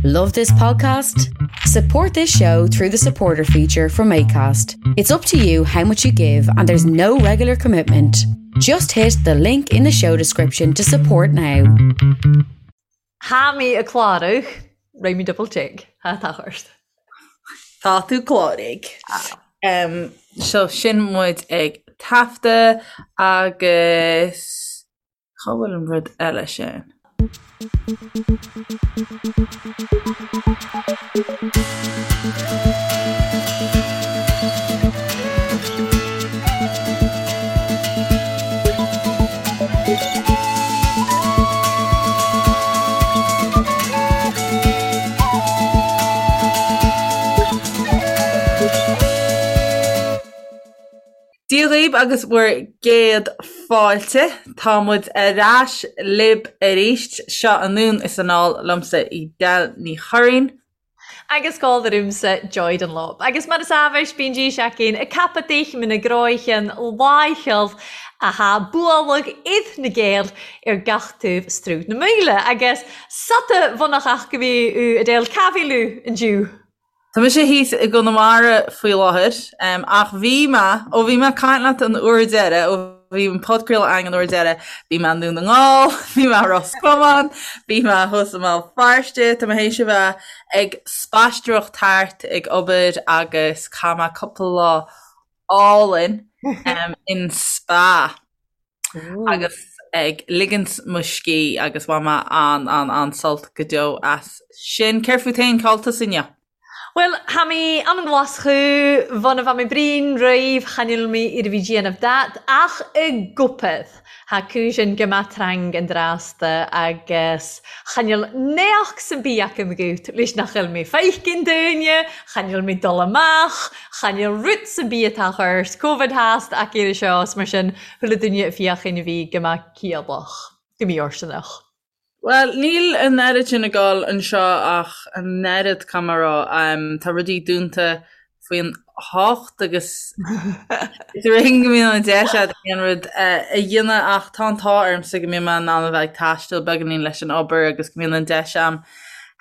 Love this podcast? Support this show through the supporter feature from ACAST. It's up to you how much you give, and there's no regular commitment. Just hit the link in the show description to support now. Tha mi a' clàraich, Raghaidh mi double check, tha tà ort. Tá tú cláraithe. Um, so sin muid ag taifeadadh agus Cá bhfuil an rud eile sin? Dia dhaoibh agus bhur gcéad fáilte. Tá muid ar ais libh arís. Seo anonn is anall liomsa Edel Ní Churraoin. Agus gabhail ormsa Joy Dunlop. Agus mar is amhais bíonn dís againn ag capadh d'aicme na gcráicheann láicheall athá bualadh id na Gaeil ar gach taobh Sruth na Maoile. Agus sota bhunach ach go bhí Edel cá bhfuil thú indiu? Tá mise thíos i gConamara faoi láthair, ach bhí mé, ó bhí mé ag caint leat an uair deiridh, ó bhí an podchraoladh againn an uair deiridh, bhí mé i nDún na nGall, bhí mé i Ros Comáin, bhí mé thuas i mBéal Feirste, tá mé théis a bheith ag spaisteoireacht thart ag obair agus chaith mé cúpla lá álainn in spa. agus ag ligint mo scíth agus bhain mé an an an-sult go deo as sin. Céard fút féin, cá bhfuil tusa inniu? Bhuel, tha mi ann an Ghlaschú, bhon a bha mi brín roimh chan eil mi ar a bhí déanamh dat, ach i gcupad. Tha cùisean gu math trang an dràsta agus chan eil neach 'san bith agam agat leis nach eil mi feicean daoine, chan eil mi dol amach, chan eil rud 'san bith a tà ort, Covid thàst ac air seo 's mar sin Chuile duine a féachann a bhí go maith ciallach, go mífhóirsteanach. Bhuel, níl an oiread sin ag dul anseo ach an oiread, caithfidh mé a rá. Tá rudaí dúnta faoin hocht agus is ar éigean go mbíonn an deis agat aon rud a dhéanamh ach tá an t-ádh ormsa go mbíonn mé in ann a bheith ag taisteal beagáinín leis an obair agus go mbíonn an deis a'm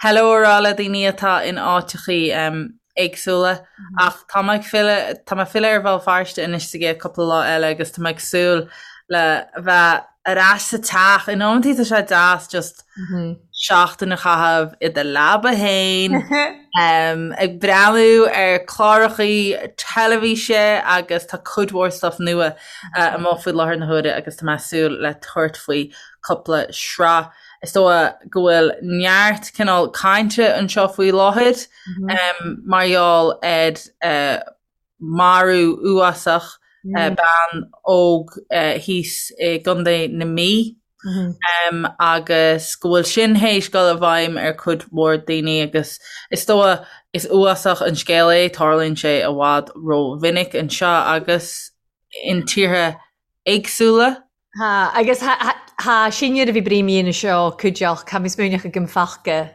hello a rá le daoine atá in áiteachaí. éagsúla. Ach tá mé ag filleadh, tá mé ag filleadh ar Bhéal Feirste anois sa gcéad cúpla lá eile agus tá mé ag súil le bheith ar ais sa teach. In amantaí tá sé deas just seachtain a chaitheamh i do leaba fhéin, ag breathnú ar clárachaí teilifíse agus tá cuid mhór stuff nua amuigh faoi láthair na huaire agus tá mé ag súil le tabhairt faoi cúpla sraith. Is dóigh go bhfuil neart cineál cainte anseo faoi láthair. mar gheall ar marú uafásach bean óg thíos i gContae na Mí agus go bhfuil sin théis dul i bhfeidhm ar cuid mhór daoine agus is dóigh is uafásach an scéal é, tarlaíonn sé i bhfad rómhinic anseo agus in tíortha éagsúla. Tá, agus tá sinne a bhí brí mí seo cuideach, tá mé smaoineach agam faca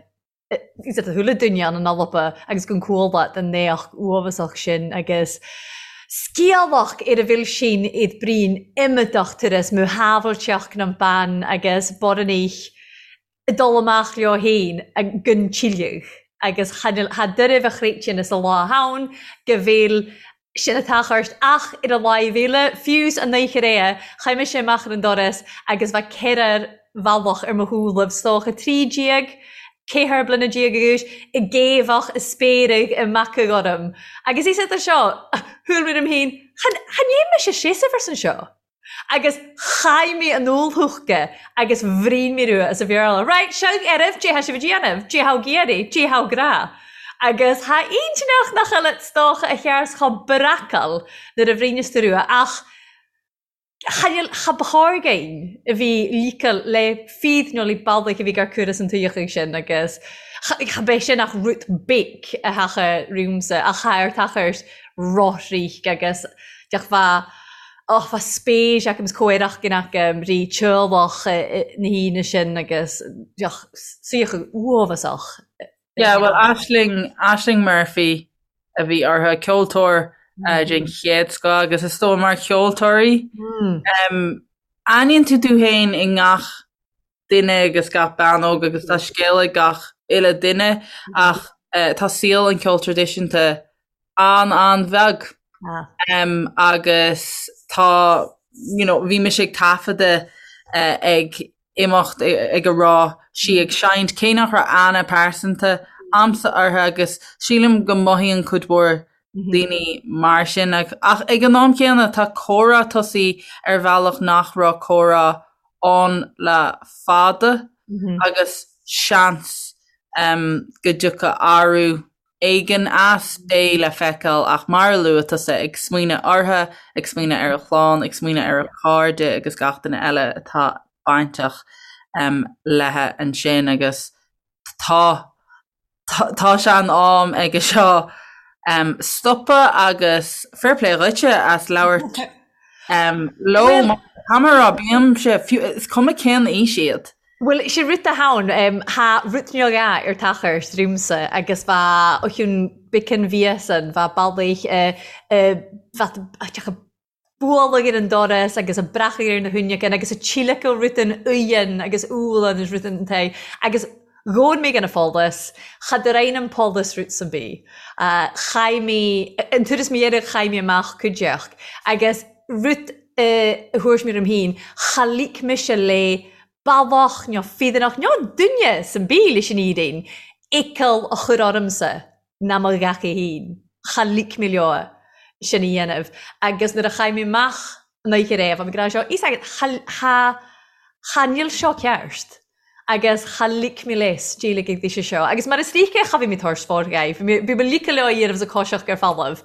is a chuile duine ann an Alba agus gon cuala den naoch uathbhasach sin agus sciamhach ar a bhfuil sin iad brín iomadach turas mó shábhailteacht nan bean agus boranaich ag dul amach leo féin gon tsilleadh agus cha doirbh a chréidtean is a lá ann go bhfuil sin atá ort ach ar a láimh eile, fiú 's an oíche aréir, chaith mise amach ar an doras agus bheadh ceithrear bhealach ar mo shúilibh, 's dócha 13, 14 bliana d'aois, ag géabhach, ag spéireadh, ag macadh orm. Agus is idir seo, shúil mé orm féin, chan, chan dhein mise seasamh arsan seo. Agus chaith mé an úllshúca agus bhrín mé rua as a Bhéarla. Right, seo oraibh, dé thá sibh a déanamh, dé thá ag iarraidh, dé thá ag rá. Agus thá intinneach nach eile 's dócha a chears chomh breacal nuair a bhríneas tú rua ach cha níl, cha ba chóir againn a bhí líceal le fíd nó le bealaigh a bhí gar cur as an tuíochaidh sin agus cha, cha b'é sin ach rud big a thacha riúmsa ach cha ar tachairt rothríc agus deach bha Och, bha spéis agam 's comhaireacht gin agam rí teaghlach na haoine sin agus deoch saothar uathbhasach. Yeah, well, Ashling, Ashling Murphy a bhí orthu, ceoltóir den chéad scoth agus is dóigh mar cheoltóirí, aithníonn tú tú féin i ngach duine agus gach bean óg agus tá scéal ag gach. uile duine ach tá saol an cheoil traidisiúnta an-an-bheag agus tá you know bhí mise ag taifeadadh ag imeacht ag a raibh sí ag seinnt cé nach raibh aithne pearsanta a'msa uirthi agus sílim go mothaíonn cuid mhór daoine mar sin ach ag an am céanna tá comhrá tosaithe ar bhealach nach raibh comhrá ann le fada agus seans go dtiocfaidh athrú éigin as, beidh le feiceáil ach mar a luaigh tusa, ag smaoineamh uirthi, ag smaoineamh ar a clann, ag smaoineamh ar a cairde agus gach duine eile atá bainteach léithi ansin agus tá tá sé in am aige seo stopadh agus fair play dhuitse as labhairt leo mar tá mé ag rá bímse fiú is cuma cén aois iad. Bhuel, sé rud atá ann, tha rud beag ar tachairt riumsa agus bha o chionn beacan mhíosan, bha bealaigh bha teach a bualadh ar an doras agus a breacadh ar na huinneacan agus a tíolacadh rud an uigheann agus úlann is rud an tae agus dhóin mé gan a follas, cha do roinn an pollas rud san bith. Chaith mé, an turas mo dheireadh chaith mé amach cuideachd agus rud a thabhairt mé orm féin, cha lig mise le bealach nó feadánach nó duine san bith leis an fhírinne, iachall a chur ormsa ná mo gheacaí féin. Cha lig mé leo sin a dhéanamh. Agus nuair a chaith mé amach an oíche roimh, bhí mé ag rá seo, fhios agat, cha, cha, cha níl seo ceart. Agus cha lig mé leis déileáil ag daoise seo. Agus mar is ríce cha bhí mé tabhairt forghaibh. Bhí mé, bhí mé ligthe leo a dhéanamh sa choiseach ar falamh.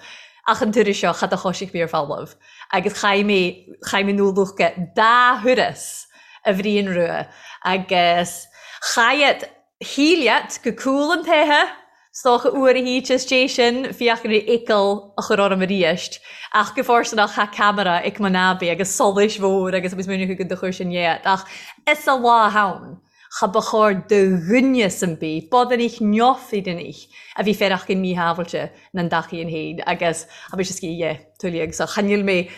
Ach an turas seo, cha do choisigh mé ar falamh. Agus chaith mé, chaith mé nó lucha dá thuras a Bhriain Rua agus chaith shíleat go cúl an taethe, 's dócha uair a híte is dé sin fiach ar fhiacail a chur orm aríst, ach go fóirsteanach tha ceamara ag mo nábaí agus solais mhór agus agus múineadh chugat do chuir sin dhéat, ach is a lá ann cha ba chóir do dhuine san bith, bodanich neofaidinich a bhí féarach gin míshábhailte na an dtacaí an fhéin agus tha mise sciath dhe, tuilleadh, so cha níl mé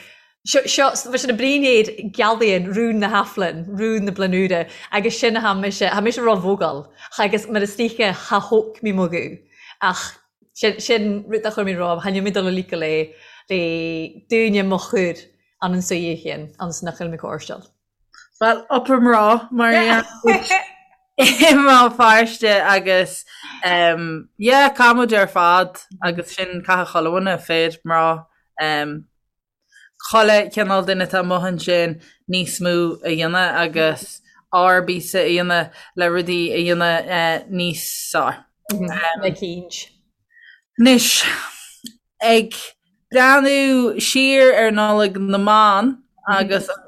Seo, seo, bhí sin a brínéad gealaíonn rún na hAflainn, rún na Blanúire, agus sin a tha mise, tha mise ró-bhógáil, agus mar is dóiche cha thóg mé mo ghuth, ach sin, sin rud a chuir mé romham, cha níl mé dul a líoca le, le dúine mo chur an an suidhe chéin, anns nach bhfuil mé cóirsteáil. Bhuel, up a mná, mar a i mBéal Feirste agus um, yeah, caithfidh muid ar fad agus sin caithfidh chuile dhuine, fir, mná, um, chuile chineál duine atá amuigh ansin níos mó a dhéanamh agus ár bpíosa a dhéanamh le rudaí a dhéanamh níos fearr. Le cinnt. Anois, ag breathnú siar ar Nollaig na mBan agus an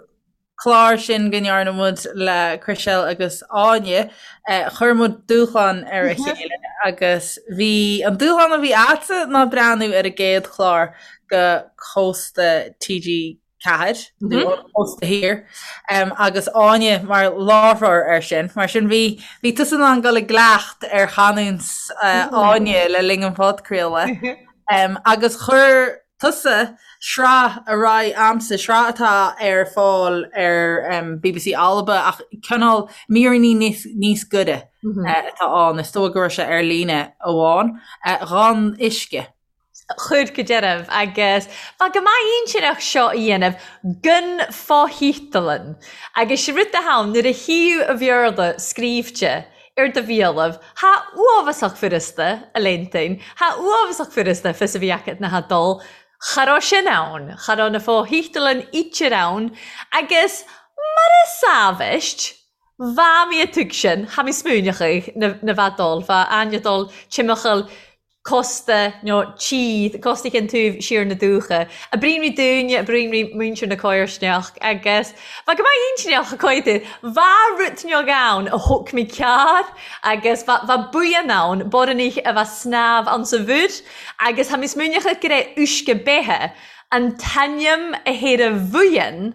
clár sin go ndearna muid le Chriselle agus Áine, chuir muid dúshlán ar a chéile agus bhí an dúshlán a bhí a'dsa ná breathnú ar an gcéad chlár go Cósta TG4, nó an Cósta Thiar, agus Áine mar láithreoir air sin. Mar sin bhí bhí tusa in ann dul i gcleacht ar chanúint Áine le linn an phodchraoladh. Agus chuir tusa sraith ar aghaidh a'msa, sraith atá ar fáil ar bbc Alba ach cineál míreanna níos goire atá ann, is dóigh go raibh sé ar líne amháin, Dhon Uisce. Chuir go dearbh agus bha go maith intinneach seo a dhéanamh gan fo-thítealann agus sé rud atá ann nuair a thaobh a Bhéarla scríbhte ar do bhialann. Tha uabhasach furasta, a léintain. Tha uabhasach furasta fios a bhí agat na tha dul. Cha raibh sin ann. Cha raibh na fo-thítealann ítear ann agus mar a sábhaist, bha mé a tug sin, tha mé smaoineachadh na na bha dul, bha aine dul timcheall cósta nó tíd, cósta Chionn Taobh siar na dúiche. A bríonraí dúinne, a bríonraí muintir na Cóirsneach agus bha go maith intinneach a coidir. Bha rud beag ann a thóg mé cearr agus bha, bha buíon ann, borrannaigh a bha snámh ann sa mhuir agus tha mé smaoineachadh gur é uisce beithe an t-ainm a théir a bhuíon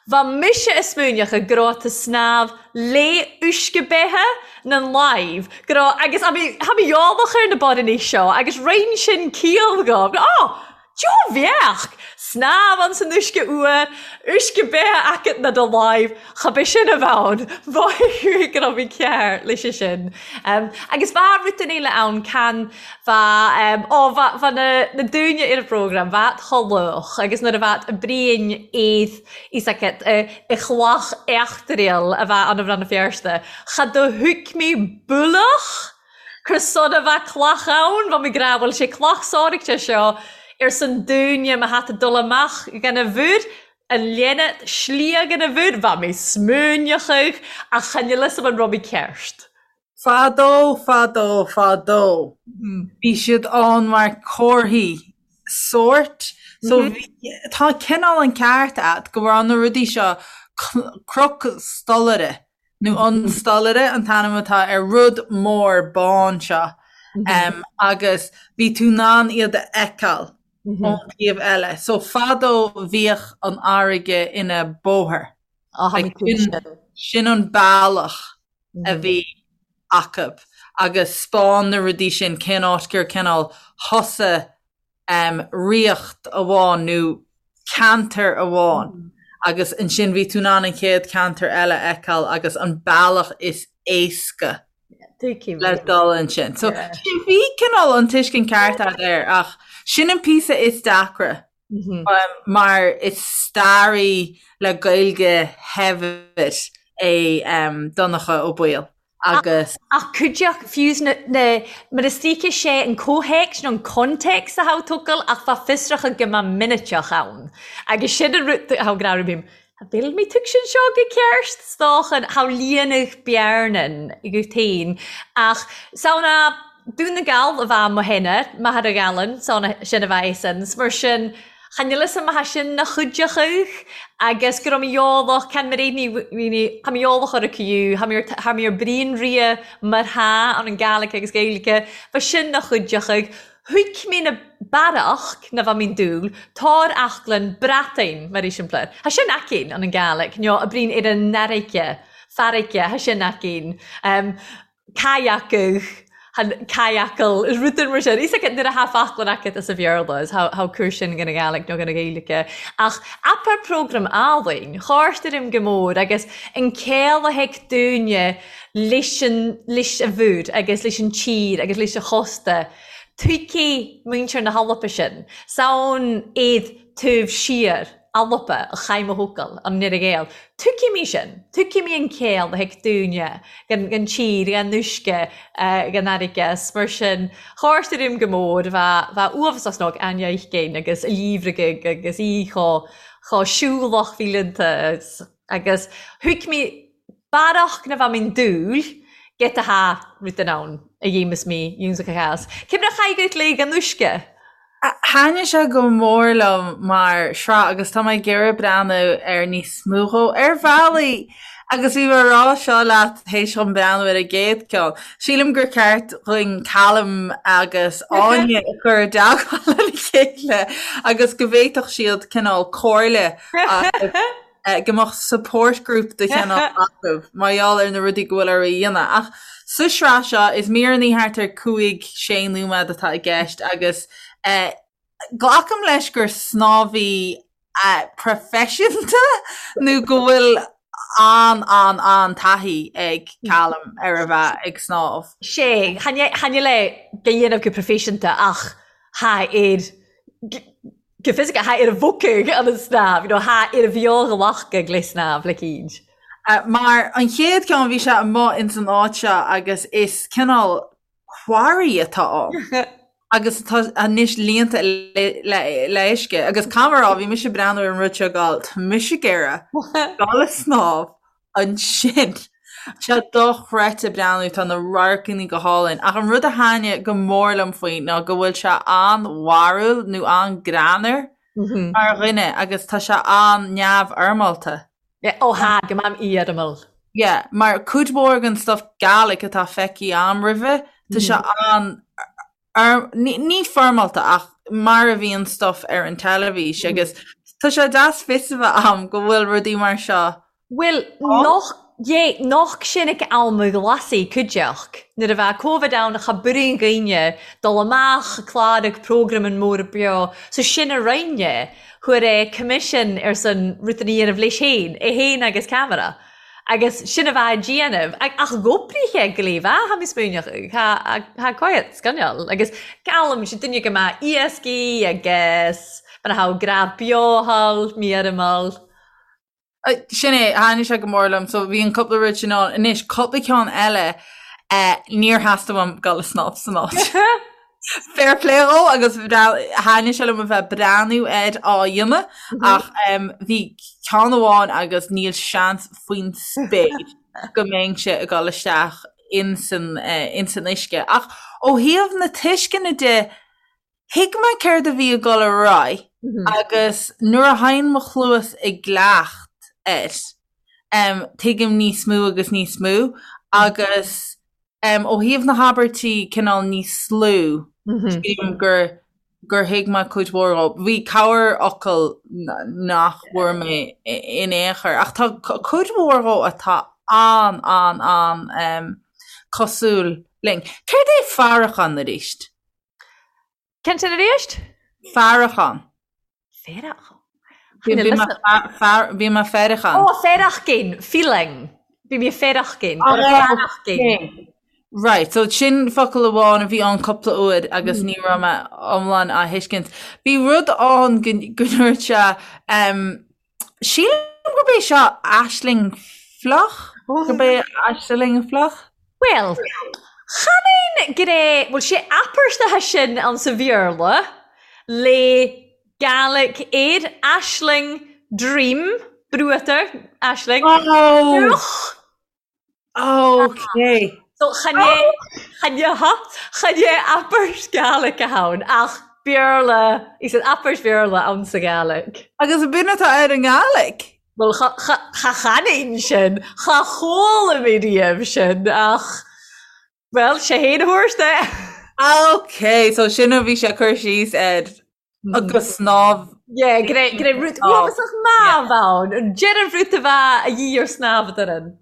Bha mise a smaoineachadh go raibh tú snámh lé uisce beithe nan láimh, go raibh, agus tha mi, tha mi eolach ar na borrannaigh seo agus roinn sin ciall dhomh, go, oh! Joe bheadh! Snámh ann san uisce fhuar, uisce beatha agat na do láimh, cha bith sin a bheith ann, mhothaigh go raibh mé cearr leis sin. Agus bheadh rud eile ann can bheadh, ó bheadh, bheadh na, na daoine ar an bprógram, bheadh chomh lách agus nuair a bheadh Brian éad fhios agat i chloch eachtraíl a bheadh ann i Rann na Feirste, cha do thuig mé bualach! Cur son a bheith cloch ann, bheadh mé ag rá, bhuel, sé cloch sáraigte seo ar son dúinne má thá tú dul amach gan a bhúr, an léine slighe gan a bhúr, bheadh mé smuaineachadh ach chan fhios a'm an raibh mé ceart. Fadó, fadó, fadó, bhí siad ann mar comharthaí sóirt. So bhí, tá cineál an ceart a'd go raibh na rudaí seo cnoc stolaire. nó an stolaire an t-ainm atá ar rud mór bán seo agus bhí tú in ann iad a fheiceáil ón taobh eile. So fadó bhíodh an fharraige ina bóthar. Sin an bealach a bhí acu agus 'spáin na rudaí sin cén áit gur cineál thosaigh ríocht amháin nó ceantar amháin agus ansin bhí tú in ann an chéad cheantar eile a fheiceáil agus an bealach is éasca le dul ansin. So bhí cineál an tuiscint ceart agat air ach sin an píosa is deacra mar is staraí le Gaeilge shaibhir é Donncha Ó Baoill. agus. Ach cuideachd fiú na, na, mar is dóiche sé an comhthéacs nó an context a tha tú tógail ach bha fiosrachadh go mba miniceach ann. Agus sin an rud a tha gnáthrú bím, Tha bhfuil mé tug sin seo go ceart? 's dócha tha líonadh bearnan agat féin ach samhna Dún na Gall a bha mo shéanadh, Machaire Ghabhlann, samhna sin a bha é sin, 's mar sin Chan fhios a'm tha sin na chuideachadh agus go raibh mé eolach, can mé réidh ní, tha mé eolach ar a cuiú, tha mé ar, tha mé ar bruíon ria mar tha ann an Gàidhlig agus Gaeilge, bha sin na chuideachadh. Thuig mé na bearach na bha mín dúil, tàr eachglann Breatainn, mar eiseamplar. Tha sin aicinn ann an Gàidhlig, nó a bruíon ar an fharraige, farraige, tha sin aicinn. Kayak-adh, han kayak-ail, is rud mar sin. Is nuair a tha faclan agat as a Bhéarla, is tha cur sin gan a Gàidhlig nó gan a Ghaeilge. Ach apar prógram álainn, chàrtar im go mór agus an céol a thig dúinne leis an, leis a mhúr agus leis an tír agus leis a chósta. Tuigfidh muintir na hAlba sin. 'S ann iad taobh siar. Alba, a chaith mo thocal, an Nire Ghael. Tuigfidh mé sin. Tuigfidh mé an céol a thig dúinne, gan tír, gan uisce, gan fharraige, 's mar sin, chàrtar im go mór, bha, bha uabhasach snog Aine Oichgein agus a líomhraigh agus í chomh, chomh siúlach fileanta agus thuig mé Barrach na bha mín dúil, get a tha rud in ann a dhéamas mí iúnsacha theas. Cé mar a chaith gut léig an uisce? Thaitnigh sé go mór liom mar shraith agus tá mé ag iarraidh breathnú ar níos mó dhó ar bhealaí agus bhí mé ag rá seo leat théis dhom breathnú ar an gcéad ceann. Sílim gur ceart dhuinn Callum agus Áine a chur i dteagmháil lena chéile agus go bhféadfadh siad cineál comhairle a go mbeadh support group de chineál acu mar gheall ar na rudaí go bhfuil orthu a dhéanamh. Ach sa sraith seo, is míreanna thart ar 5, 6 nóiméad atá i gceist agus glacaim leis gur snámhaí proifisiúnta nó go bhfuil an, an, an-taithí ag Callum ar a bheith ag snámh. Sé, chan le go dhéanamh go proifisiúnta ach tha air Go fisiceach, tha air a bhogfadh an snámh, you know, tha air a bheo-ghlacadh le snámh le cinn. Mar an chéad ceann bhí sé amuigh ins an áit seo agus is cineál quarry atá ann agus tá anois líonta le le uisce agus caithfidh mé a rá bhí mise ag breathnú ar an rud seo ag gabháil tá mise ag iarraidh dul ag snámh ansin. Tá sé dochreidte breathnú, tá na radharcanna go hálainn. Ach an rud a thaitnigh go mór liom faoi ná go bhfuil sé an-bharrúil nó an-greannmhar mar dhuine agus tá sé an-neamhfhoirmeálta. Yeah, ó tha, go mam fhoirmiúil. Yeah, mar cuid mhór den stuff Gaelic atá feicthe a'm roimhe, tá sé an ní foirmeálta ach mar a bhíonn stuff ar an teilifís agus tá sé deas fios a bheith a'm go bhfuil rudaí mar seo Bhuel, noch. Yeah, noch sin ag am a ghlasaigh cuideachd. Nuair a bheadh Covid ann cha b'fhuirinn dhaoine dul amach clárach programan mór beo, so sin a rinne, chuir é commission ar son rud a dhéanamh leis féin, é féin agus ceamara. Agus sin a bheadh a déanamh. Ach dh'oibrigh go léir, tha mi smaoineachadh, tha coimhead scannáil. Agus geallaim, sé duine go mbeadh iascaigh agus mar a thabh graf beo thall, mí ar an mball. Sin é, thaitnigh sé go mór liom, so bhí an cúpla rud sin ann. Anois, cúpla ceann eile, níor theastaigh uaim dul ag snámh san áit. Fair play dhó agus thaitnigh sé liom a bheith ag breathnú air á dhéanamh ach bhí ceann amháin agus níl seans faoin spéir go mbeinnse ag dul isteach insan insan uisce. Ach ó thaobh na tuisceana de, Thuig mé céard a bhí ag dul ar aghaidh agus nuair a théann mo chluas i gcleacht air, tuigim níos mó agus níos mó agus ó thaobh na habairtí cineál níos lú, sílim gur gur thuig mé cuid mhór dhó. Bhí corrfhocal nach bhfuair mé in aon chor ach tá cuid mhór dhó atá an, an, an cosúil linn. Céard é faireachán arís? Cén sin arís? Faireachán. Faireachán? Bhí mé faireachán. Ó, faireachán, feeling. Bhí mé faireachán. Faireachán. Right, so sin focal amháin a bhí ann cúpla uair agus ní raibh mé iomlán á thuiscint. Bhí rud ann go ndúirt sé, Sílim gurb é seo aisling fliuch? Gurb é aisling fliuch? Bhuel, chan aon gné, bhuel, sé apairteacha sin ann sa Bhéarla le Gaelic air, aisling, dream, bruatar, aisling, Oh! fliuch. Ok. So chan é, chan é, chan é abairt Gaelic ann ach Béarla, is an abairt Bhéarla ann sa Ghaelic. Agus b'in atá ar an nGaelic? Bhuel, cha, cha chanfainn sin, cha chuala mé riamh sin ach, bhuel, sé fhéin a thabhairt é. Ok, so sin a bhí sé ag cur síos air. Agus snámh. Yeah, go raibh, go raibh rud uafásach marbh ann, an deireadh rud a bheadh a dhíth ar snámh a d'fhoireann.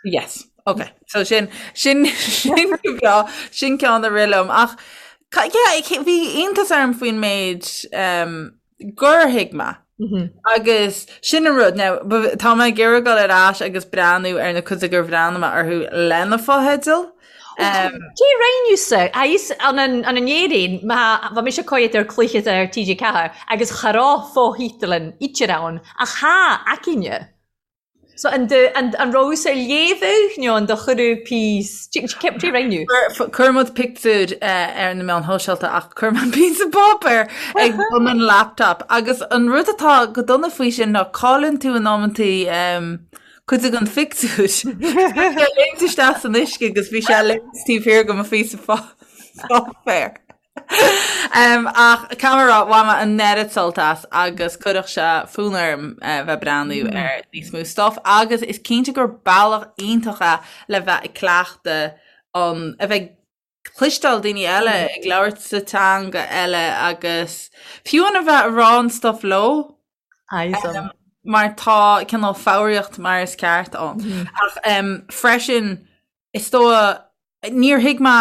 Yes, ok. So sin, sin, sin go breá, sin ceann a rith liom. Ach, yeah, bhí iontas orm faoin méid um, gur thuig mé. Agus sin an rud, now, tá mé ag iarraidh dul ar ais agus breathnú ar na cuid gur bhreathnaigh mé orthu le na fotheidil. Cé roinneadh-sa? Agus an an Éirinn, má bha mise coimhead ar cluiche ar TG4 agus cha raibh fo-thítelan idir ann ach tha againne. So an do an an raibh-sa léamhadh nó an do chuireadh píos cé roinneadh? Chuir muid pictiúr ar na meáin shóisialta ach chuir mé píosa páipéir ag bun an laptop agus an rud atá go dona faoi sin ná cailleann tú in amantaí cuid den phictiúr. Bhí sé léimt isteach san uisce agus bhí sé léimt taobh thiar de mo phíosa páipéir. Ach caithfidh mé a rá, bhain mé an oiread sult as agus chuirfeadh sé fonn orm bheith ag breathnú ar níos mó stuff agus is cinnte gur bealach iontach é le bheith ag cleachtadh an, a bheith ag cloisteáil daoine eile ag labhairt sa teanga eile agus fiú an a bheith ag rá an stuff leo. Awesome. Mar tá cineál foghraíocht mar is ceart ann. Ach freisin, is dóigh, níor thuig mé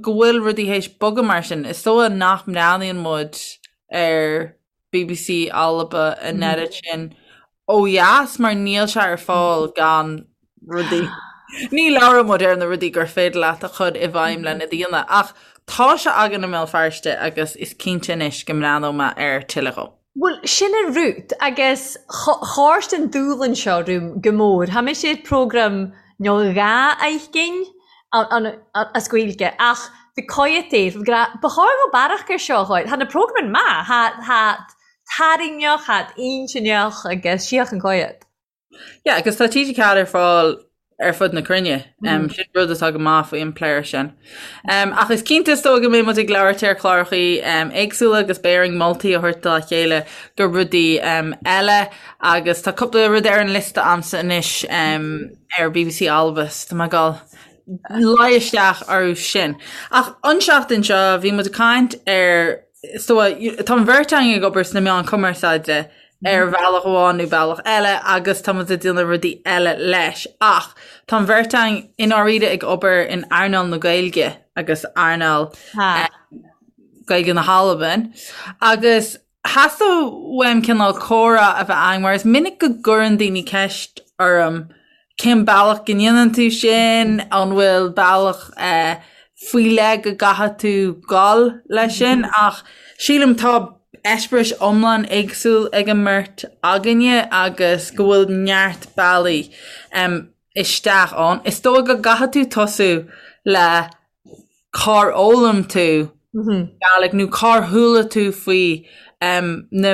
go bhfuil rudaí théis bogadh mar sin. Is dóigh nach mbreathnaíonn muid ar BBC Alba an oiread sin ó dheas mar níl sé ar fáil gan rudaí. Ní labhróidh muid ar na rudaí gur féidir leat a chur i bhfeidhm lena dhaoine, ach tá sé againn i mBéal Feirste agus is cinnte anois go mbreathnóidh mé ar tuilleadh dhó. Bhuel, sin an rud, agus thabhairt an dúshlán seo romham go mór. Tha mise ar programme nó dha fheicinn as Gaeilge, ach bhí coimhead air, ba chóir dhó bearach air seo a chur. Tha na programmain maith, tha tarraingneach, tha intinneach agus síoch an coimhead. Yeah, agus tá TG4 ar fáil ar fud na cruinne. Um, sin rud atá go maith faoi an player sin. Um, ach is cinnte is dóigh go mbeidh muid ag labhairt ar chlárachaí um, éagsúla agus beidh orainn moltaí a thabhairt dá chéile do rudaí um, eile agus tá cúpla rud ar an liosta a'msa anois um, ar BBC Alba so tá mé ag dul luí isteach orthu sin. Ach an seachtain seo bhí muid ag caint ar so tá an bheirt againn ag obair sna meáin cumarsáide. ar bhealach amháin nó bealach eile agus tá muid ag déanamh rudaí eile leis ach tá an bheirt againn i ndáiríre ag obair in earnáil na Gaeilge agus earnáil Gaeilge na hAlban agus Theastaigh uaim cineál comhrá a bheith againn mar is minic go gcuireann daoine ceist orm cén bealach go ndéanann tú sin, an bhfuil bealach faoi leith go gcaithfidh tú dul leis sin ach sílim tá eispéiris iomlán éagsúil ag an mbeirt againne agus go bhfuil neart bealaí isteach ann. Is dóigh go gcaithfidh tú tosú le cár fhoghlaim tú Gàidhlig nó cár chuala tú faoi na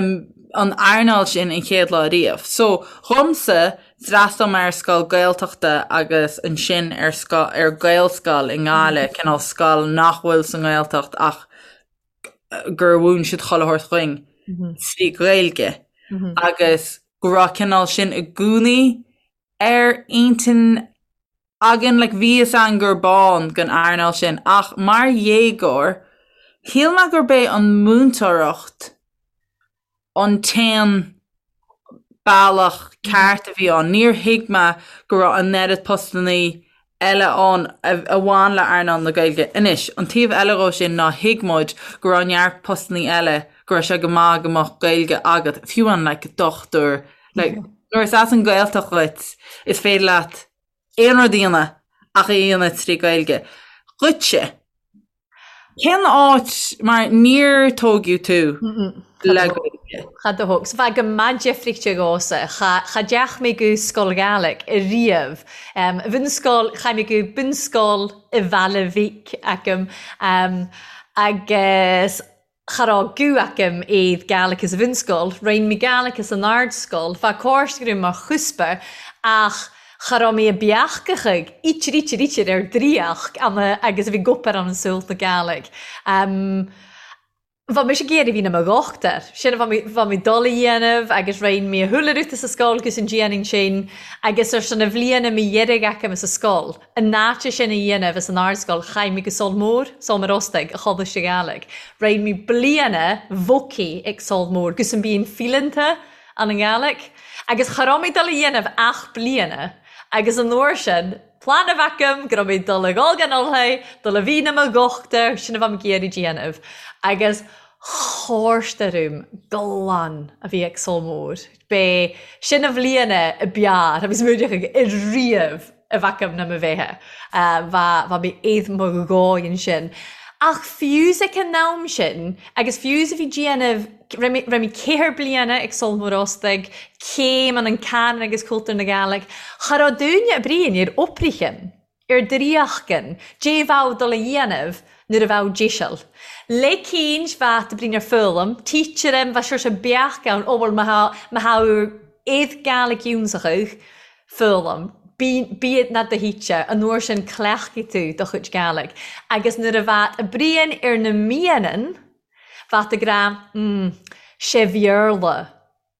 an earnáil sin an chéad lá riamh. So, dhomsa, d'fhreastail mé ar scoil Gaeltachta agus ansin ar scoil ar Gaelscoil i nGaillimh, cineál scoil nach bhfuil sa nGaeltacht ach gur mhúin siad chuile shórt dhuinn trí Ghaeilge agus go raibh cineál sin i gcónaí ar intinn againn, like bhí fhios againn gurb ann don earnáil sin ach mar dhéagóir shíl mé gurb é an múinteoireacht an t-aon bealach ceart a bhí ann. Níor thuig mé go raibh an oiread postannaí eile ann a bhain le earnáil na Gaeilge. Anois, an taobh eile dhó sin ná thuig muid go raibh neart postannaí eile go raibh sé go maith go mbeadh Gaeilge agat, fiú an like dochtúir, like nuair is as an Ghaeltacht dhuit is féidir leat aon rud a dhéanamh ach é a dhéanamh trí Ghaeilge. Dhuitse, cén áit, mar níor tógadh tú le Gaeilge? Cha do thóg. So bheadh go maith deifríochta dhomhsa. Cha, cha dteach mé go scoil Ghaelic ariamh. Bhunscoil, chaith mé go bunscoil i Bhaile Mhíc agam. Agus Cha raibh guth agam aoibh Gaelic sa bhunscoil, rinn mé Gaelic san ardscoil, bheadh córas agam mar chuspa ach cha raibh mé a beachachadh ítir ítir ítir ar draíocht ama agus a bhí gopair ann an saol na Gaelic. Bheadh mise ag iarraidh bhí na mo dhochtúir, sin a bheadh mé dul a dhéanamh agus rinn mé a shúile rúta sa scoil agus an déanann sin agus ar son a bhliana mé dheiridh agam sa scoil. An áit sin a dhéanamh as an ardscoil chaith mé go Sabhal Mór, Sabhal Mòr Ostaig, a Choláiste Gàidhlig. Rinn mé bliana bhócaí ag Sabhal Mór gus an bíonn fileanta ann an Ghàidhlig. Agus cha raibh mé dul a dhéanamh ach bliana agus an uair sin plean a bheith agam go raibh mé dul a dhul gan Ulthaidh, dul a bhí na mo dhochtúir, sin a bheadh mé ag iarraidh déanamh. Agus chóirste orm glan a bhí ag Sabhal Mór. B'é sin a bhliana a b'fhearr a bhí smuaireach ag ariamh. a bheadh agam ná mo bheatha. Bheadh mé aoth mo dhóigh ansin. Ach fiú ag an am sin, agus fiú is a bhí déanamh, raibh mé ceithre bliana ag Sabhal Mòr Ostaig, céim an an canann agus cultúr na Gàidhlig, cha raibh dúine a bríon ar oibrichin, ar draíochtain, dé bheadh dul a dhéanamh nuair a bheadh deiseal. Le cinn bheadh de bríon ar foghlaim, teacher bheadh sure beach ann, ó bhuel má thá aoth Gàidhlig ionsachadh, Foghlaim. Bí, bí ná do thíte, an uair sin cleachtfaidh tú do chuid Gàidhlig. Agus nuair a bheadh a bruíon ar na mianan, bheadh ag rá, mm, sé Bhéarla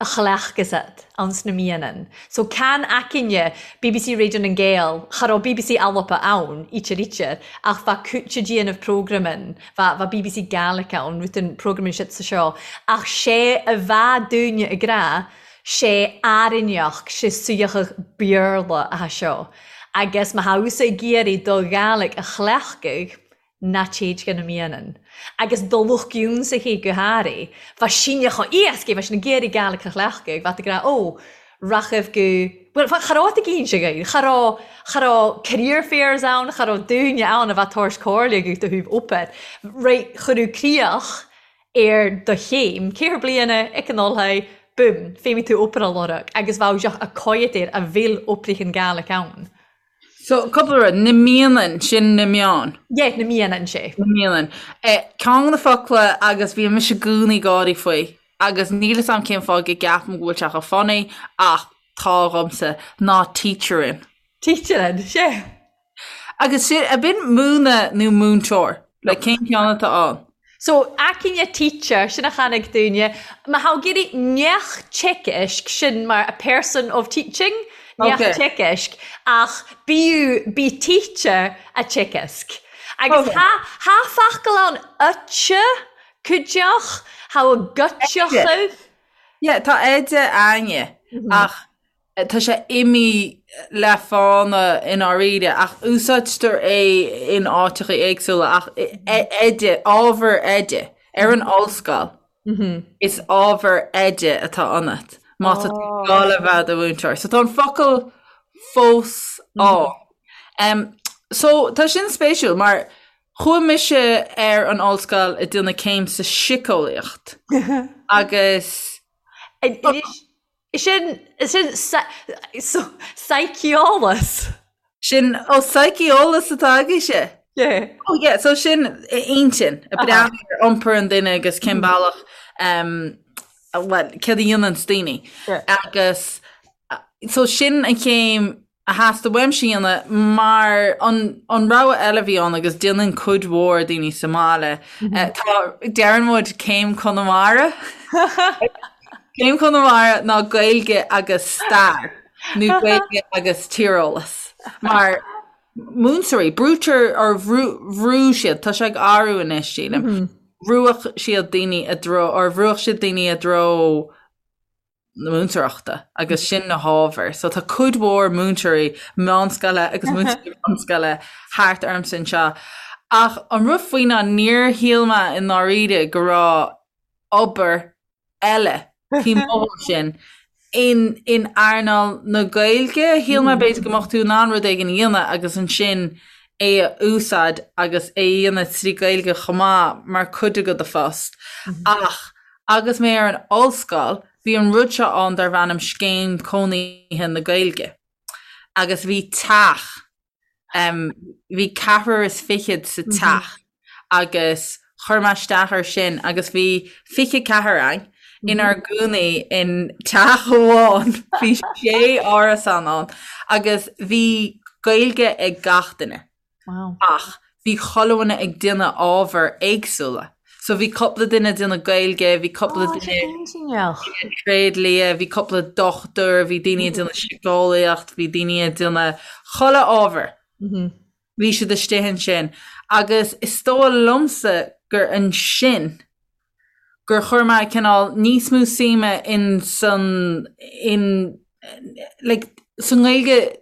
a chleachtfas a'd ann sna mianan. So can aicinne bbc Radio nan Gael, cha raibh bbc Alba ann, ítear ítear, ach bheadh cúite déanamh programan, bheadh, bheadh bbc Gaelic ann, rud programan siad sa seo, ach sé a bheadh dúinne ag rá, sé airneach, sé suíochadh Béarla atá seo, agus má thá thusa ag iarraidh do Ghàidhlig a chleachtadh, ná téid go na mianan. Agus do lucht ionsaithe go háirithe, bheadh síneadh chomh éasca, bheadh sin ag iarraidh Gàidhlig a chleachtadh, bheadh ag rá, ó, rachaibh go, bhuel, cha raibh ag inse dhaoibh, cha raibh, cha raibh career fairs ann, cha raibh daoine ann a bheadh tabhairt comhairle agat do thaobh obair. Right, chuireadh críoch ar do chéim, ceithre bliana ag an Ollscoil, boom, feidhmigh tú obair a lorg agus bheadh deoch a coigead air a bhfuil oibrigh an Gaelic ann. So, cúpla rud, na mianan, sin na meáin. Yeah, na mianan, sé. Na mianan. Eh, ceann de na focla agus bhí mise i gcónaí ag gáirí faoi agus níl 'fhios a'm cén fáth go gceapaim go bhfuil sé chomh funny ach tá dhomsa, ná teacherin. Teacherin, sé. Agus sin, ab in múineadh nó múinteoir? Like, cén ceann atá ann? So, aicinne teacher, sin a chonaic dúinne. Má thá ag iarraidh neach teichisc, sin mar a person of teaching, neach Okay. teichisc, ach bíodh, bí teacher a teichisc. Agus Okay. thá, thá focal ann oite, cuideach, thá a gcuiteachadh. Yeah, tá oide a'inne ach tá sé imithe le fána i ndáiríre ach úsáidtear é in áiteacha éagsúla ach oide, ábhar oide ar an ollscoil is ábhar oide atá ionat má tá tú ag dul a bheith i do mhúinteoir. So tá an focal fós ann. So tá sin spéisiúil mar Chuaigh mise ar an ollscoil ag déanamh céim sa síceolaíocht agus. Sin, sin saiceolas. Sin, ó saiceolas atá agaibhse? Yeah. Oh yeah, so sin intinn, ag breathnú ar iompar an duine agus cén bealach, well, céard a dhéananns daoine. Agus so sin an chéim a theastaigh uaimse a dhéanamh mar an an rogha eile a bhí ann agus déanann cuid mhór daoine sa mbaile tá deireann muid céim Conamara Céim Chonamara ná Gaeilge agus stair nó Gaeilge agus tíreolas mar múinteoirí brúitear or bhrú bhrú siad tá sé ag athrú anois sílim bhrúadh siad daoine i dtreo or bhrúadh siad daoine i dtreo na múinteoireachta agus sin na hábhair. So tá cuid mhór múinteoirí meánscoile agus múinteoirí bunscoile thart ormsa anseo. Ach an rud faoi ná níor shíl mé i ndáiríre go raibh obair eile taobh amuigh de sin in in earnáil na Gaeilge. Shíl mé b'fhéidir go mbeadh tú in ann rud éigin a dhéanamh agus ansin é a úsáid agus é a dhéanamh trí Ghaeilge chomh maith mar chuid de do phost. Ach Agus mé ar an ollscoil, bhí an rud seo ann darbh ainm Scéim Cónaithe na Gaeilge. Agus bhí teach, em, bhí ceathrar is fichead sa teach agus chuir mé isteach air sin agus bhí 24 againn inár gcónaí in teach amháin, bhí sé árasán ann agus bhí Gaeilge ag gach duine. Wow. Ach bhí chuile dhuine ag déanamh ábhair éagsúla. So bhí cúpla duine ag déanamh Gaeilge, bhí cúpla Oh, duine iontach. tréidlia, bhí cúpla dochtúir, bhí daoine ag déanamh síceolaíocht, bhí daoine ag déanamh chuile ábhar. Bhí siad istigh ansin. Agus is dóigh liomsa gur ansin gur chuir mé cineál níos mó suime in san in like sa nGaeilge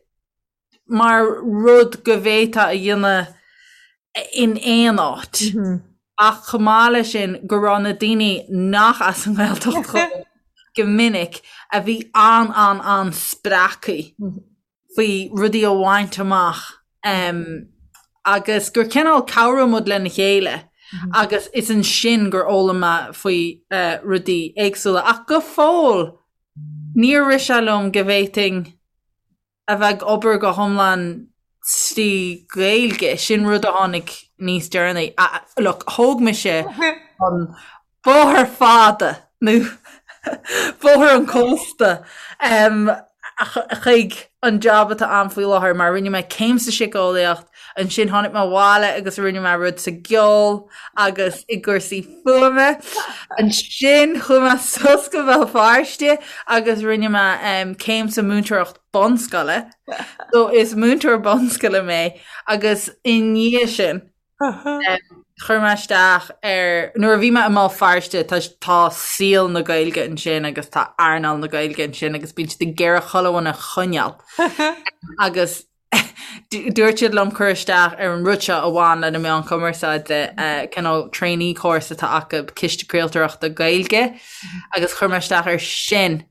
mar rud go bhféadfá a dhéanamh in aon áit. Ach chomh maith leis sin go raibh na daoine nach as an nGaeltacht dhóibh go minic a bhí an-an-an-spreagtha faoi rudaí a bhaint amach agus gur cineál cabhraigh muid lena chéile agus is ansin gur fhoghlaim mé faoi rudaí éagsúla. Ach go fóill níor rith sé liom go bhféadfainn a bheith ag obair go hiomlán trí Ghaeilge, sin rud a tháinig níos deireanaí. Look, thóg mise an bóthar fada nó bóthar an chósta chuig an job atá a'm faoi láthair mar rinne mé céim sa síceolaíocht, ansin tháinig mé abhaile agus rinne mé rud sa gceol agus i gcúrsaí fuaime. Ansin chuaigh mé suas go Béal Feirste agus rinne mé céim sa múinteoireacht bunscoile. So is múinteoir bunscoile mé agus i ndiaidh sin chuir mé isteach ar nuair a bhí mé i mBéal Feirste tá tá saol na Gaeilge ansin agus tá earnáil na Gaeilge ansin agus bíonn siad ag iarraidh chuile dhuine a choinneáil. Agus Dúirt siad liom cur isteach ar an rud seo a bhain le na meáin chumarsáide, cineál trainee course atá acu, Ciste Craoltóireachta Gaeilge, agus chuir mé isteach air sin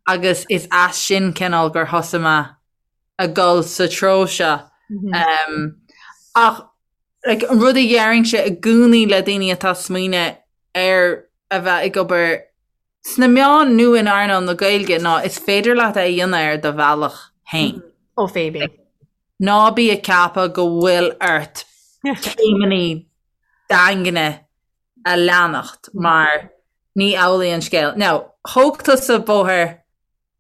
agus is as sin cineál gur thosaigh mé ag dul sa treo seo. Ach like, an rud a deirimse i gcónaí le daoine atá ag smaoineamh ar a bheith ag obair sna meáin nó in earnáil na Gaeilge ná is féidir leat é a dhéanamh ar do bhealach féin. Ó Phoebe. Ná bí ag ceapadh go bhfuil ort céimeanna daingne a leanacht mar ní amhlaidh an scéal. Now, thóg tusa bóthar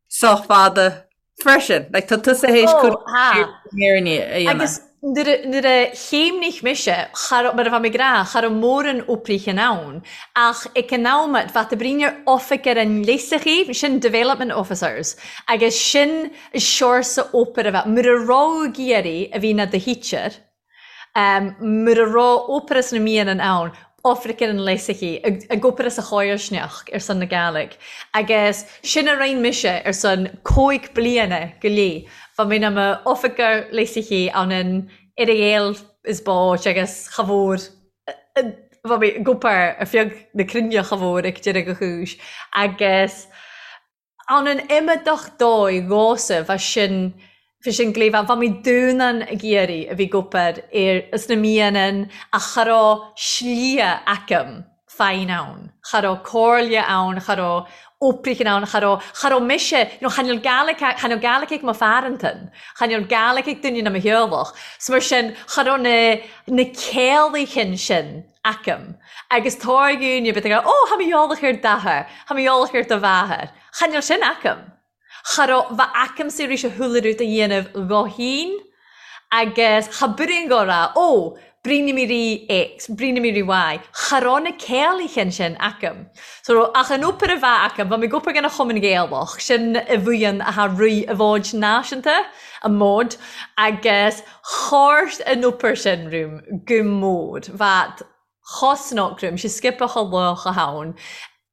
sách fada freisin. Like, tá tusa théis Ó, cuid ha. fírinne a dhéanamh. Agus nuair a, nuair a chéimnigh mise, cha raibh, mar a bheadh mé ag rá, cha raibh mórán oibrithe ann, ach ag an am, bheadh oibríonn ar oifig ar an léasachaí, sin development officers, agus sin seorsa obair a bheadh, mura raibh ag iarraidh a bhí ina do theacher, mura raibh obair sna míonna ann. Oifricean an Léasachaí ag obair as a chomharsanacht ar son na Gàidhlig agus sin a rinn mise ar son cóig bliana go leith. Bha mi 'na m'oifigear léasachaí ann an Earra is báit agus cha mhór bha mi ag obair ar feadh na cruinne cha mhór ag deireadh a chúis agus Ann an iomadach dóigh dhomhsa bha sin bha sin glé bha mi dúnan ag iarraidh a bhith ag obair ar sna mianan ach cha robh slighe agam faighinn ann. Cha robh comhairle ann, cha robh oibrichan ann, cha robh, cha robh mise, you know, cha nil Gaelic, cha nil Gaelic ag mo pharantan, cha nil Gaelic ag duine na mo theaghlach. So mar sin, cha robh na, na céalaichan sin agam. Agus tá dhaoine bit ag rá, Ó, tha mi eòlach air d'athair, tha mi eòlach air do mhàthair. Chan eil sin agam. Cha robh bha agamsa ris a chuile rud a dhéanamh dho fhìn agus cha bruidhinn dho rá, Ó, bruidhinn mi ri X, bruidhinn mi ri Y. Cha robh na céalaichan sin agam. So, ach an obair a bha agam, bha mi ag obair dhan a Chumann Gaelach, sin a bhuíon a tha rith a bhfóid náisiúnta, a mbod, agus Chorrt an obair sin rúm gu mór, bha chosnoc rúm, sé sciobtha cho lách a thann.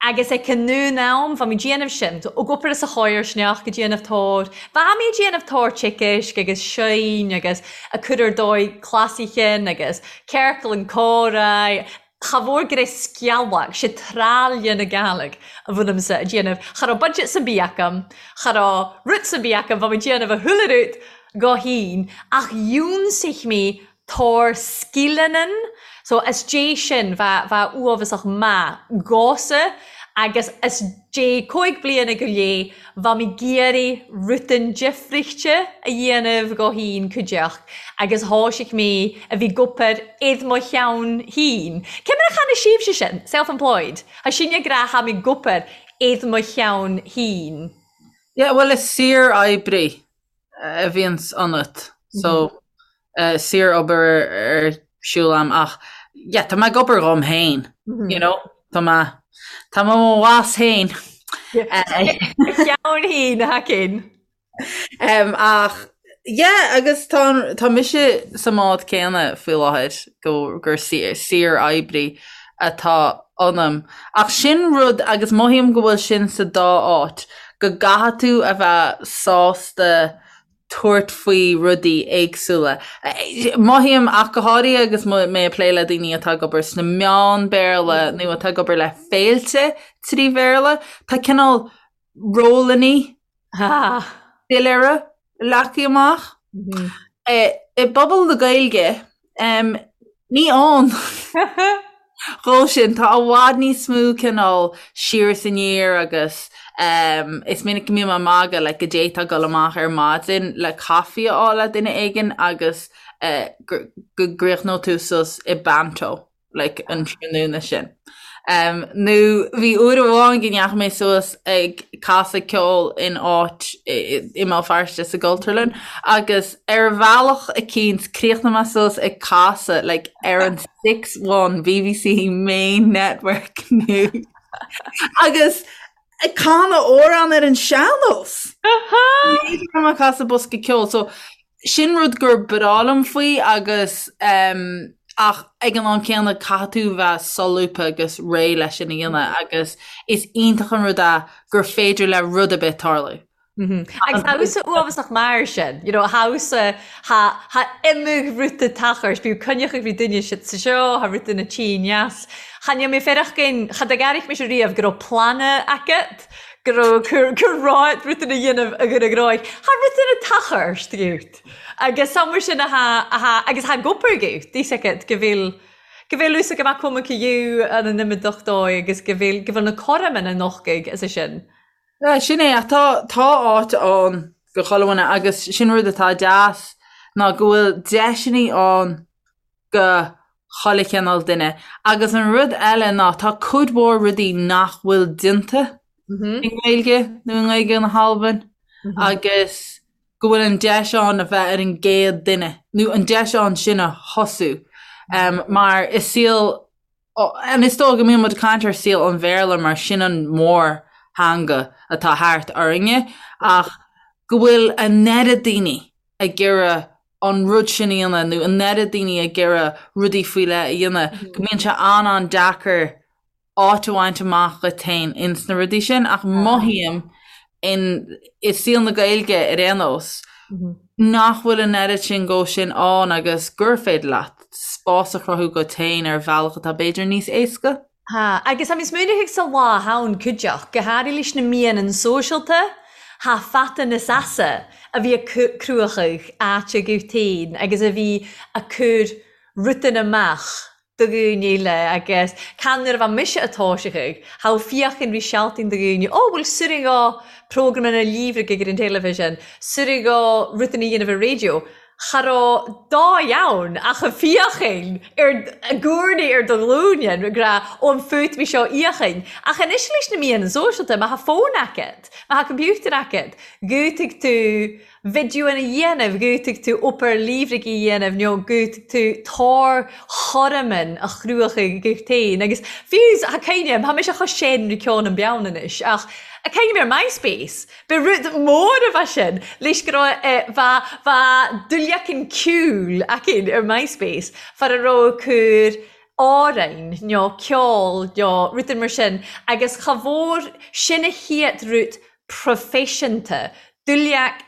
Agus ag an ndún am, bha mi déanamh sin, ag obair as a chomharsanacht, ag déanamh tóir, bha mi ag déanamh tóir ticéisc agus seinn agus ag cur ar dóigh clasaichean agus ciorcal an comhrá, Cha mhór gur é sceallach, sé tráille na Gàidhlig a bhfuilimse a déanamh. Cha rabh budget san bith agam, cha rabh rud san bith agam, bha mi déanamh a chuile rud dho fhìn, ach dhiúnsaich mi tóir sgileannan, so as dé sin bha, bha uabhasach math dhomhsa agus as dé cóig bliana go léith bha mi g-iarraidh rudan difrichte a dhéanamh dho fhìn cuideachd agus thoisigh mi a bhith ag obair id mo cheann fhìn. Cé mar a chanadh sibhse sin, self-employed? Tha sinne ag rá tha mi ag obair id mo cheann fhìn. Yeah, bhuel is saor-oibrí a bhíonns ionat so saor-obair ar siúl a'm ach yeah tá mé ag obair dhom féin, you know, tá mé tá mé mo bhoss féin. Cheann fhìn, a Haicín. Ach yeah agus tá tá mise sa mbád céanna faoi láthair go gur saor-oibrí atá ionam. Ach sin rud agus mothaím go bhfuil sin sa dá áit, go gcaithfidh tú a bheith sásta tabhairt faoi rudaí éagsúla. Mothaím ach go háirithe agus mé ag plé le daoine atá ag obair sna meáin Béarla nó atá ag obair le féilte trí Bhéarla, tá cineál rólannaí doiléire leagtha amach. I bpobal na Gaeilge, ní ann dhó sin. Tá i bhfad níos mó cineál siar is aniar agus is minic go mbím ag magadh like go d'fhéadfá dul amach ar maidin le caife a fháil le duine éigin agus go gcríochnódh tú suas i bpanto. like an tráthnóna sin. Um, nó bhí uair amháin go ndeachaigh mé suas ag casadh ceoil in áit i mBéal Feirste sa gCultúrlann agus ar bhealach eicínt chríochnaigh mé suas ag casadh like, ar an 6-1 BBC Main Network News. agus ag canadh amhrán ar an sean-nós. Ní raibh mé ag casadh bosca ceoil, so Sin rud gur breá liom faoi agus ach ag an am céanna caithfidh tú bheith solúbtha agus réidh leis sin a dhéanamh agus is iontach an rud é gur féidir le rud ar bith tarlú. Agus tha thusa uabhasach mar sin, you know, tha thusa, tha, tha iomdha ruda tachairt, bíodh coinneach ag bhí duine sa seo, tha ruda na tí ndeas. Chan eil mi feireachdain, cha d-airig mise riamh go robh plean agat. go raibh gur raibh rudaí a dhéanamh a gcur ag ráig. Tha rudaí a tachairt dhút. Agus samhail sin a tha a tha agus tha gobar dhút, thíos agat go bhfuil go bhfuil fhios agam acu mo you an an imeacht dóigh agus go bhfuil go bhfuil na cothroime na nochtaigh as sin. Yeah, sin é ach tá tá áit ann go chuile dhuine agus sin rud atá deas ná go bhfuil deiseanna ann go chuile chineál duine. Agus an rud eile ná tá cuid mhór rudaí nach bhfuil déanta i nGaeilge nó i nGaeilge na hAlban agus go bhfuil an deis ann a bheith ar an gcéad duine nó an deis ann sin a thosú. Mar i saol and is dóigh go mbíonn muid ag caint ar saol an Bhéarla mar sin an mórtheanga atá thart orainne ach go bhfuil an oiread daoine ag iarraidh. an rud sin a dhéanamh nó an oiread daoine ag iarraidh rudaí faoi leith a dhéanamh go mbíonn sé an-an-deacair áit a bhaint amach dhuit féin ins na rudaí sin ach mothaím in i saol na Gaeilge ar aon nós nach bhfuil an oiread sin dhó sin ann agus gur féidir leat spás a chruthú dhuit féin ar bhealach atá b'fhéidir níos éasca. Tha, agus tha mi smaoineachadh sa lá ann cuideachd, gu hàraidh leis na meadhanan sòisealta, tha fata nas easa a bhí a cruachadh àite dhubh tain agus a bhí a cur rudan amach do dhaoine eile agus can nuair a bha mise a toiseachadh, tha fiachain ri sealtainn do dhaoine, ó bhuel suireadh dhó programanna líomhraigh ar an teilifísean, suireadh dhó rudan a dhéanamh ar raidió. Cha raibh dóigh ann ach a fhiachain ar a gcúrnaí ar do ghlúine, ag rá, ó an fút mé seo fhiachain. Ach anois leis na meadhanan sóisialta, má tha fón agat, má tha computer agat, gútaigh tú videoanna a dhéanamh, gútaigh tú obair líomhraigh a dhéanamh nó gútaigh tú tor chormain a chruachaigh dhuit féin. Agus fiú, tha cuimhne a'm, tha mise cho sean ri ceann an beann anois, ach a cuimhne ar MySpace, Ba rud mór a bha sin, leis go raibh bha bha duilleacan ceoil againn ar MySpace far a raibh cur amhráin nó ceol nó rudaí mar sin agus cha mhór sin a chéad rud proifisiúnta, duilleac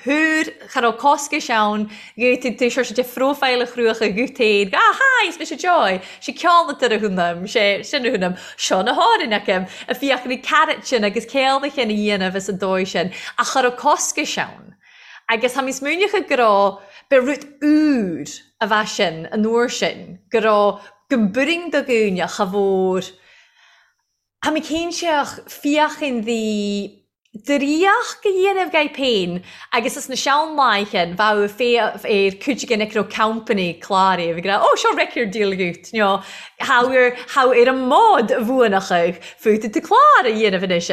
thúr, cha raibh coscais ann, gheobhaidh tú sort de phróifile a chruacha dhuit féin, ah hi, is mise Joy, sé ceol a thúnam, sé sin a thúnam, seo na hárainn acu, a fiach na carrot sin agus céalda sin a dhéanamh is an dóigh sin, ach cha raibh coscais ann. Agus tha mi smaoineachadh go raibh, ba rud úr a bha sin an uair sin, go raibh, go mb'fhurraing do dhaoine cha mhór, Tha mi cinnteach fiachain dhi draíocht a dhéanamh dhaibh féin agus is na sean-laighean bheadh féach ar cuid den ag raibh company cláraithe ag rá ó seo record deal dhuit nó tha ar tha ar an mbod a bhuanachadh fút tú clár a dhéanamh anois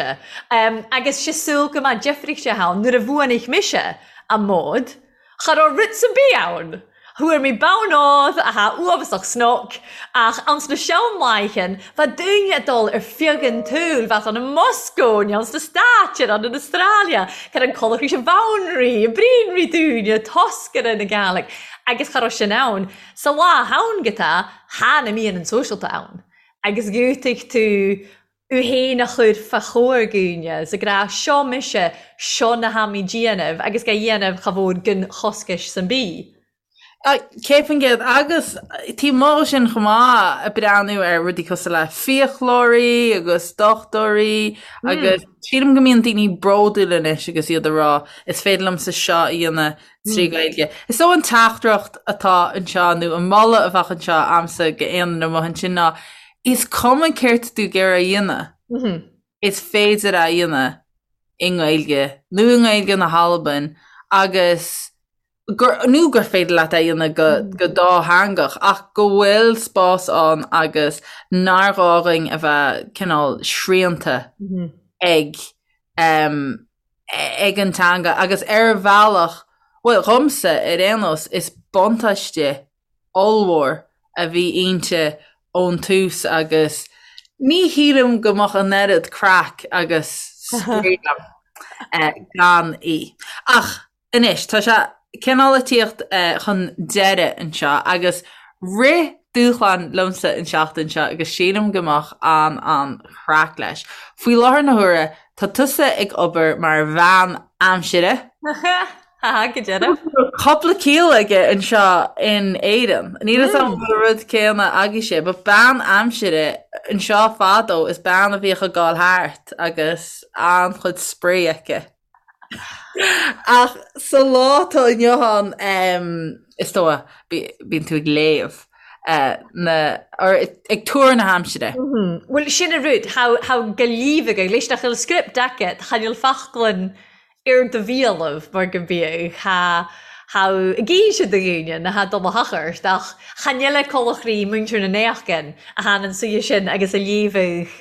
agus sé súil go mbeadh difríocht ann nuair a bhuanaigh mise an mbod Cha raibh rud sa bith ann. Fuair mé bonn ód a tha uabhasach snoc, ach anns na sean-laighean bheadh daoine ag dul ar feadh an tsaoil, bheadh ann i Moscó, nó anns na Stáit, ar ann in Australia, cur an colachraís i bhfonnraí, i bpríonraí daoine, toscaire na Gàidhlig, agus cha raibh sin ann. Sa lá ann go tá, tha na meadhanan sóisialta ann, agus dhiúltaigh tú Thú fhéin a chur fa chomhair dhaoine 's ag rá seo mise, seo na hamaí déanamh agus ga dhéanamh cha mhór gon choscais san bídh. 100% agus taobh amuigh de sin chomh maith ag breathnú ar rudaí cosúil le fiaclóirí agus dochtúirí agus sílim go mbíonn daoine bródúil anois agus iad ag rá is féidir liomsa seo a dhéanamh trí Ghaeilge. Is dóigh an teachtaireacht atá anseo nó an moladh a bheadh anseo a'msa go aon duine amuigh ansin ná Is cuma céard tá tú ag iarraidh a dhéanamh, is féidir é a dhéanamh i nGaeilge nó i nGaeilge na hAlban agus gur, nó gur féidir leat é a dhéanamh go, go dátheangach ach go bhfuil spás ann agus nár ghá dhuinn a bheith cineál srianta ag ag an teanga agus ar bhealach, bhuel dhomsa ar aon nós, is buntáiste ollmhór a bhí inti ón tús agus ní shílim go mbeadh an oiread craic agus spraoi agam gan í. Ach anois, tá sé cineál ag tíocht chun deireadh anseo agus rith dúshlán liomsa an seachtain seo agus sílim go mbeadh an-an-chraic leis. Faoi láthair na huaire, tá tusa ag obair mar bhean aimsire. Haha, go deireadh. Cúpla ciall aige anseo in Éirinn. Níl a fhios agam an bhfuil an rud céanna agaibhse, but bean aimsire anseo fadó is bean a bhíodh ag gabháil thart agus an-chuid spraoi aici. Ach sa lá atá inniu ann, is dóigh, bíonn tú ag léamh na, or ag tuar na haimsire. Bhuel, sin an rud, tha go líomhagadh, leis nach bhfuil script agat, chan eil faclainn ar do bhialann mar go mbíodh tha tha ag inse do dhaoine na tha dul a thochairt ach chan eile colachraí muintir na n-éachgan a than an suidhe sin agus a léamhadh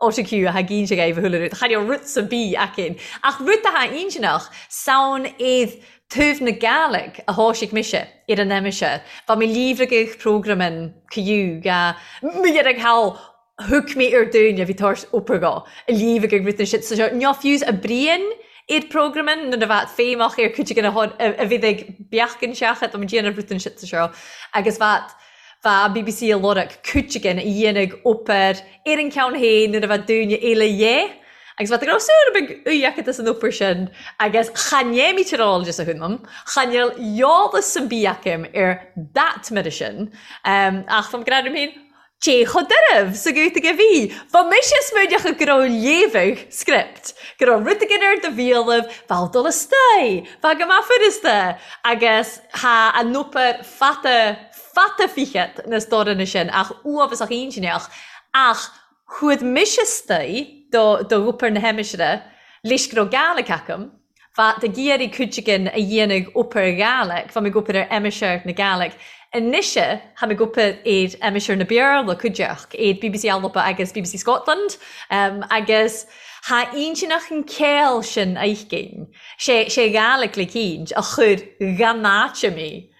autocue a tha ag inse dhaoibh a chuile rud. Chan eil rud sa bith aicinn ach rud a tha intinneach samhain iad taobh na Gàidhlig a thoisigh mise ar an aimsir. Bha mi líomhragadh programan caoú ga mi dhearg thall Thug mé ar dúine a bhí tabhairt obair dhó, a líomh ag rith na shit sa seo. Ná fiús a Brian. Iad programming nuair a bheadh feidhmeach ar cuid de na a bhí ag beachan seachad am déanamh rud an shit seo agus bheadh bheadh an bbc a lorg cuid again a dhéanamh obair ar an ceann féin nuair a bheadh dúine eile dhé agus bheadh go raibh súil beag uaidh acu san obair sin agus cha néimítear eolas a thúnam cha níl eolas san bí acu ar that mire sin ach fam gradam féin Cé chomh doirbh sa gcúiteamh a bhí? Bha mise smaoineachadh go raibh léamhadh script, go raibh rud éigin ar do bhéalaibh, bheadh dul istoigh, bheadh go maith furasta, agus tha an obair fada, fada fichead na stóranna sin ach uafasach intinneach, ach chuaigh mise istoigh do, do obair na haimsire, leis go raibh Gaelic agam. Bheadh ag iarraidh cuid againn a dhéanamh obair Ghaelic, bheadh mé ag obair ar aimsir na Gaelic. Anois tha mi ag obair ar aimsir na Beurla cuideachd, ar bbc Alba agus bbc Scotland, agus tha inntinneach an ceol sin aicinn. Sé sé Gaelic le cinnt a chuir dhan áite mé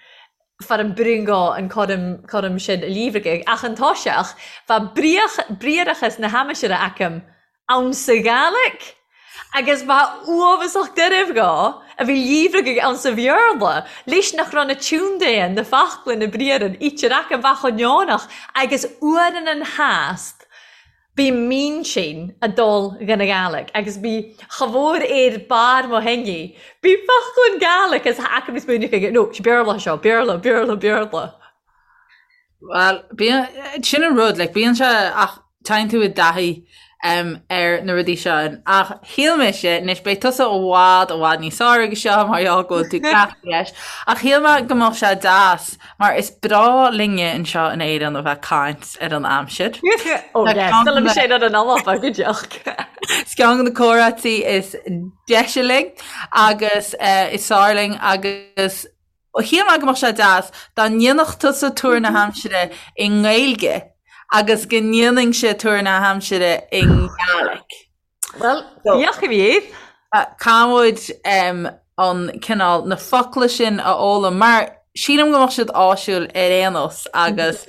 far an brionglóid an coram coram sin a líomhragadh, ach an toiseach, bheadh bríoch briathrachas na haimsire aicim ann sa Ghaelic agus ba uafasach doirbh dhó a bhí líomhragadh ann sa Bhéarla, leis nach raibh na tiúndaighe, na focla, na briathra, ítear aca bheith chomh neonach agus uaireann an theast bhí m'intinn a dul dhen Ghaelic agus bhí cha mhór ar barr mo theinní, bhí focla an Gaelic agus aca níos múineadh aige, no, sé Béarla seo, Béarla, Béarla, Béarla. Bhuel, bíonn, sin an rud, like, bíonn sé ach téann tú i dtaithí um, ar na rudaí seo. Ach shíl mise, anois beidh tusa i bhfad, i bhfad níos fearr aige seo mar gheall go bhfuil tú cleachtaithe leis, ach shíl mé go mbeadh sé deas, mar is breá linne anseo in Éirinn a bheith ag caint ar an aimsir. Oh yes, Tá liom sé ar an alapa go deoch. Is ceann de na comhráití is deise linn agus uh, is fearr linn agus Shíl mé go mbeadh sé deas dá ndéanfadh tusa tuar na haimsire i nGaeilge agus go ndéanfainnse tuar na haimsire i nGaelic. Bhuel, bíodh a bhí. Caithfidh muid an cineál, na focla sin a fhoghlaim mar sílim go mbeadh siad áisiúil ar aon nós agus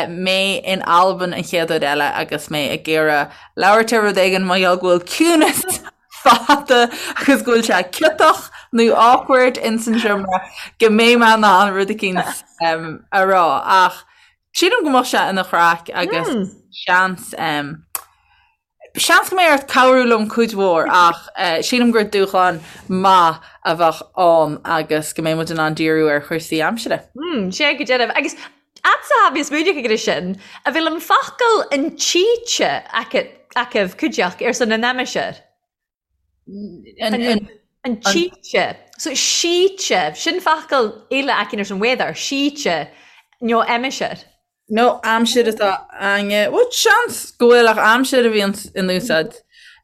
mé in Albain an chéad uair eile agus mé ag iarraidh labhairt ar rud éigin mar gheall go bhfuil ciúnas fada agus go bhfuil sé ciotach nó awkward ins an seomra go mbeidh mé in ann rud eicínt a rá ach sílim go mbeadh sé ina chraic agus seans seans go mbeidh ort cabhrú liom cuid mhór ach sílim gur dúshlán maith a bheadh ann agus go mbeidh muid in ann díriú ar chúrsaí aimsire. Sé go deimhin. Agus fhad's atá mé ag smaoineamh air sin, a bhfuil an focal an tsíte acu cuideachd ar son an aimsir. An tsíte. So síte, sin focal eile acu ar son weather, síte, nó aimsir. Nó aimsir atá againne. Bhuel, seans go bhfuil ach aimsir a bhíonn in úsáid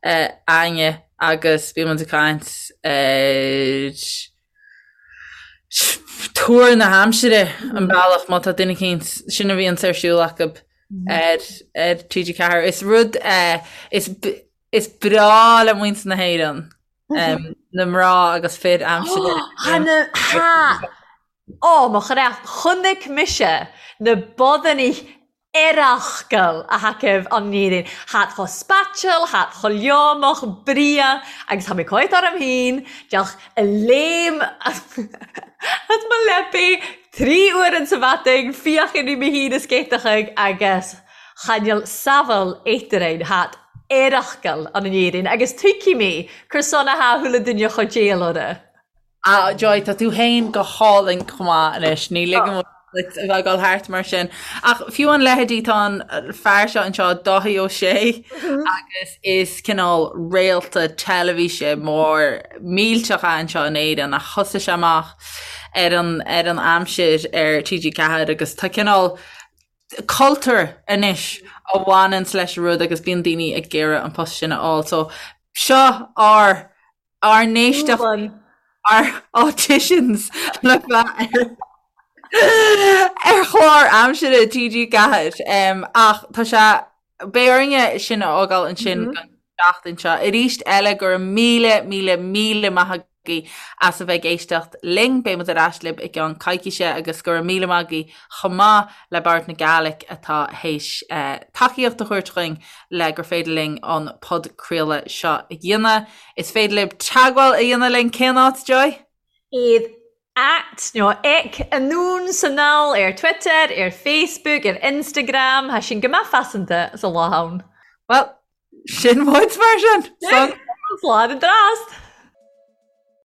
againne agus bíonn muid ag caint ar tuar na haimsire an bealach má tá duine eicínt sin a bhíonns ar siúl acu ar ar TG4. Is rud is is breá le muintir na hÉireann na mná agus fir aimsire. Ha! Ó, mo chreach, chonaic mise na bodannaí Earrachgal a thacaibh an Éirinn. Thad cho spaiteal, thad cho leomach, bria, agus tha mi coit orm fhìn, deoch a léim as mo leabaidh tri uairean sa mhadain, fiachain ri mi fhìn a scéiteachaidh agus chan eil samhail eatarainn, thad earrachgal an Éirinn, agus tuigfidh mi cur son a tha chuile duine cho déil orra. Ah, Joy, tá tú féin go hálainn chomh maith anois, ní ligeann muid duit a bheith ag dul thart mar sin. Ach fiú an leithéidí, tá an fear seo anseo, Dáithí Ó Sé, agus is cineál réalta teilifíse mór millteach é anseo in Éirinn ach thosaigh sé amach ar an, ar an aimsir ar TG4 agus tá cineál cultúr anois a bhaineanns leis an rud agus bíonn daoine ag iarraidh an post sin a fháil. So seo ár ár n-éisteacht, ár auditions le bheith ar chlár aimsire TG4. Ach tá sé, beidh orainne sin a fhágáil ansin don tseachtain seo. Arís eile, go raibh míle, míle, míle maith agat. Agaibh as a bheith ag éisteacht linn. Beidh muid ar ais libh i gceann coicíse agus go raibh míle maith agaibh chomh maith le Bòrd na Gàidhlig atá théis tacaíocht a thabhairt dhuinn le gur féidir linn an podchraoladh seo a dhéanamh. Is féidir libh teagmháil a dhéanamh linn cén áit, Joy? Iad at nó ec Anonn 's Anall ar Twitter, ar Facebook, ar Instagram, tha sinn gu math faiseanta sa lá ann. Bhuel, sin muid mar sin! Slàn an dràst!